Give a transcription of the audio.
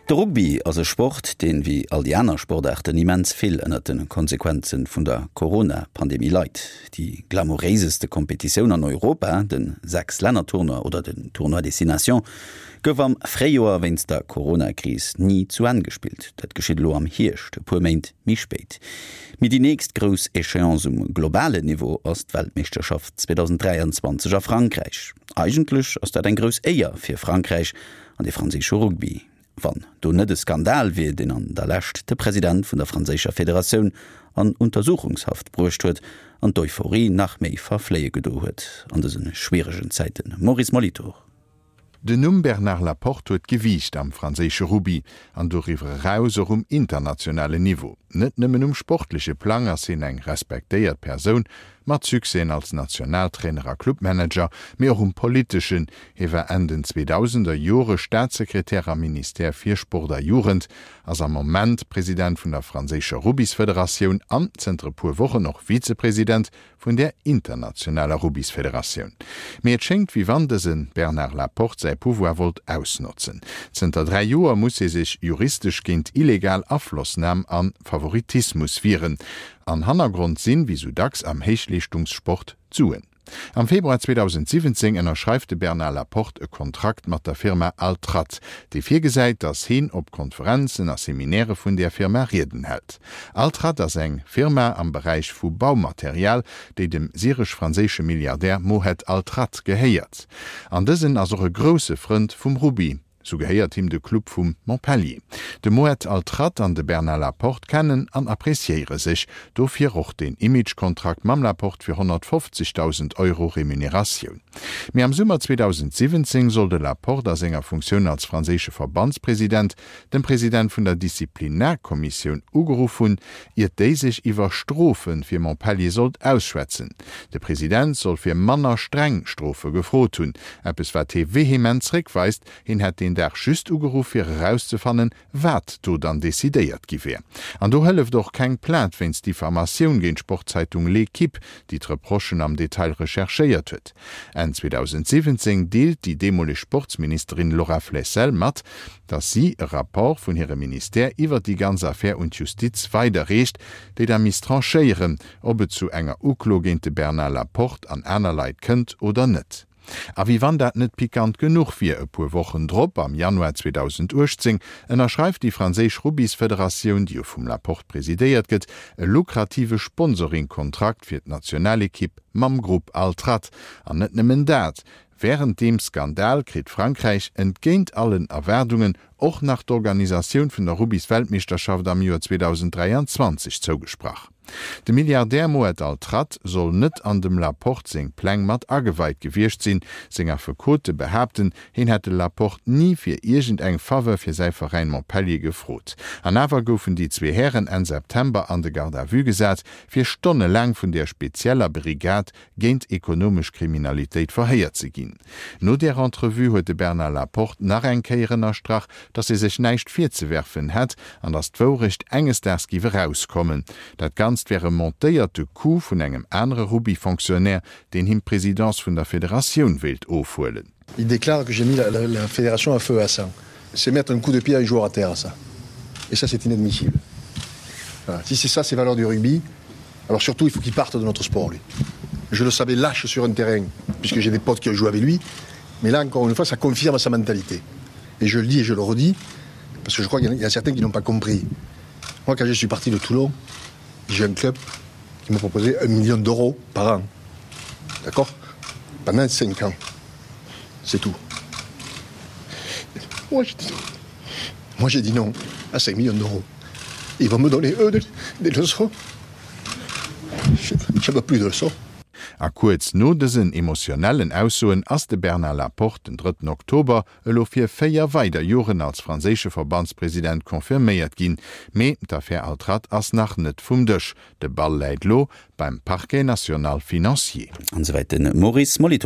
De Rugby ass e Sport, deen, wéi all déi aner Sportaarten, immens vill ënnert de Konsequenze vun der Corona-Pandemie leit. Déi glamouréiseste Kompetitioun an Europa, de Sechs-Länner-Tournoi oder den Tournoi des Six Nations, gouf am Fréijoer wéinst der Corona-Kris ni zu Enn gespillt. Dat geschitt elo am Hierscht, e puer Méint méi spéit. Mee déi nächst grouss Echéance um globalen Niveau ass d'Weltmeeschterschaft 2023 a Frankräich. Eigentlech ass dat eng grouss Éier fir Frankräich an de franséische Rugby, wann do net e Skandal wier, deen an der Lescht de President vun der franséischer Federatioun an Untersuchungshaft bruecht huet an d'Euphorie nach méi verfléie gedo huet an dëse schwieregen Zäiten. Maurice Molitor. Den Numm Bernard Laporte huet Gewiicht am franséische Rugby an doriwwer eraus och um internationalen Niveau. Net nëmmen um sportleche Plang ass hien eng respektéiert Persoun, mat Succèsen als Nationaltrainer a Clubmanager, mee och um politeschen. Hie war Enn den 2000er Jore Staatssekretär am Ministère fir Sport a Jugend, ass am Moment President vun der franséischer Rubbysfederatioun an zënter e puer Wochen och Vizepresident vun där internationaler Rubbysfederatioun. Mee et schéngt, wéi wann dëse Bernard Laporte säi Pouvoir wollt ausnotzen. Zënter 3 Joer muss hie sech juristesch géint illegal Aflossnam a Favoritismus wieren. An Hannergrond sinn, wéi sou dacks am Héichleeschtungssport, d'Suen. Am Februar 2017 ënnerschreift de Bernard Laporte e Kontrakt mat der Firma Altrad, dee virgesäit, datt heen op Konferenzen a Seminaire vun där Firma Rieden hält. Altrad ass eng Firma am Beräich vu Baumaterial, déi dem syresch-franséische Milliardär Mohed Altrad gehéiert. An dësen ass och e grousse Frënd vum Rugby. Sou gehéiert him de Club vu Montpellier. De Mohed Altrad an de Bernard Laporte kennen an appreciéiere sech, dofir och deen Image-Kontrakt mam Laporte fir 150.000 Euro Remuneratioun. Mee am Summer 2017 soll de Laporte a senger Funktioun als franséische Verbandspresident dem President vun der Disziplinarkommissioun ugeruff hunn, iert déi sech iwwer Strofe fir Montpellier sollt ausschwätzen. De President soll fir manner streng Strofe gefrot hunn, eppes wat hee vehement zréckweist. Hien hätt deen Dag just ugeruff fir erauszefannen, wat do dann decidéiert gi wär. An do hëlleft och keng Plainte wéinst Diffamatioun géint d'Sportzeitung L'Equipe, déi d'Reprochen am Detail recherchéiert huet. Enn 2017 deelt déi deemoleg Sportsministerin Laura Flessel mat, datt si e Rapport vun hirem Ministère iwwer déi ganz Affär un d'Justiz weiderreecht, déi da misst tranchéieren, ob et zu enger Uklo géint de Bernard Laporte an aner Leit kënnt oder net. A wéi wann dat net pikant genuch wier, e puer Wochen drop, am Januar 2018, ënnerschreift déi franséisch Rubbysfederatioun, déi jo vum Laporte presidéiert gëtt, e lukrative Sponsoringkontrakt fir d'Nationalekipp mam Grupp Altrad. An net nëmmen dat, Wärend deem Skandal kritt Frankräich, entgéint allen Erwaardungen, och nach d'Organisatioun vun der Rubbys-Weltmeeschterschaft am Joer 2023 zougesprach. De Milliardär Mohed Altrad soll net an dem Laporte seng Pläng mat ageweit gewiescht sinn. Seng Affekote behaapten, hien hätt de Laporte ni fir iergend eng Faveur fir säi Veräin Montpellier gefrot. An awer goufen déi zwee Hären Enn September an de Garde à vue gesat, fir stonnelaang vun där spezieller Brigade géint ekonomesch Kriminalitéit verhéiert ze ginn. No där Entrevue huet de Bernard Laporte nach eng Kéier ënnerstrach, datt hie sech näischt virzewerfen hätt an datt d'Wourecht enges Daags giff erauskommen. Dat Ganzt wär e montéierte Coup vun engem anere Rugby-Fonctionnaire, deen him d'Presidence vun der Federatioun wéilt ofhuelen. Il déclare que j'ai mis la, la, la fédération à feu à ça. C'est mettre un coup de pied à un joueur à terre, ça. Et ça, c'est inadmissible. Voilà. Si c'est ça, ses valeurs du rugby, alors surtout, il faut qu'il parte de notre sport, lui. Je le savais lâche sur un terrain, puisque j'ai des potes qui ont joué avec lui. Mais là, encore une fois, ça confirme sa mentalité. Et je le dis et je le redis, parce que je crois qu'il y, a certains qui n'ont pas compris. Moi, quand je suis parti de Toulon, j'ai un club qui m'a proposé un million d'euros par an. D'accord Pendant cinq ans. C'est tout. Moi, j'ai dit non. Moi, j'ai dit non à 5 millions d'euros. Ils vont me donner, eux, des, des leçons. Je ne veux plus de leçons. A kuerz no dësen emotionellen Aussoen ass de Bernard Laporte den drëtten Oktober elo fir 4 weider Joren als franséische Verbandspresident confirméiert ginn. Mee d'Affär Altrad ass nach net vum Dësch. De Ball läit lo beim Parquet national financier. An esouwäit de Maurice Molitor.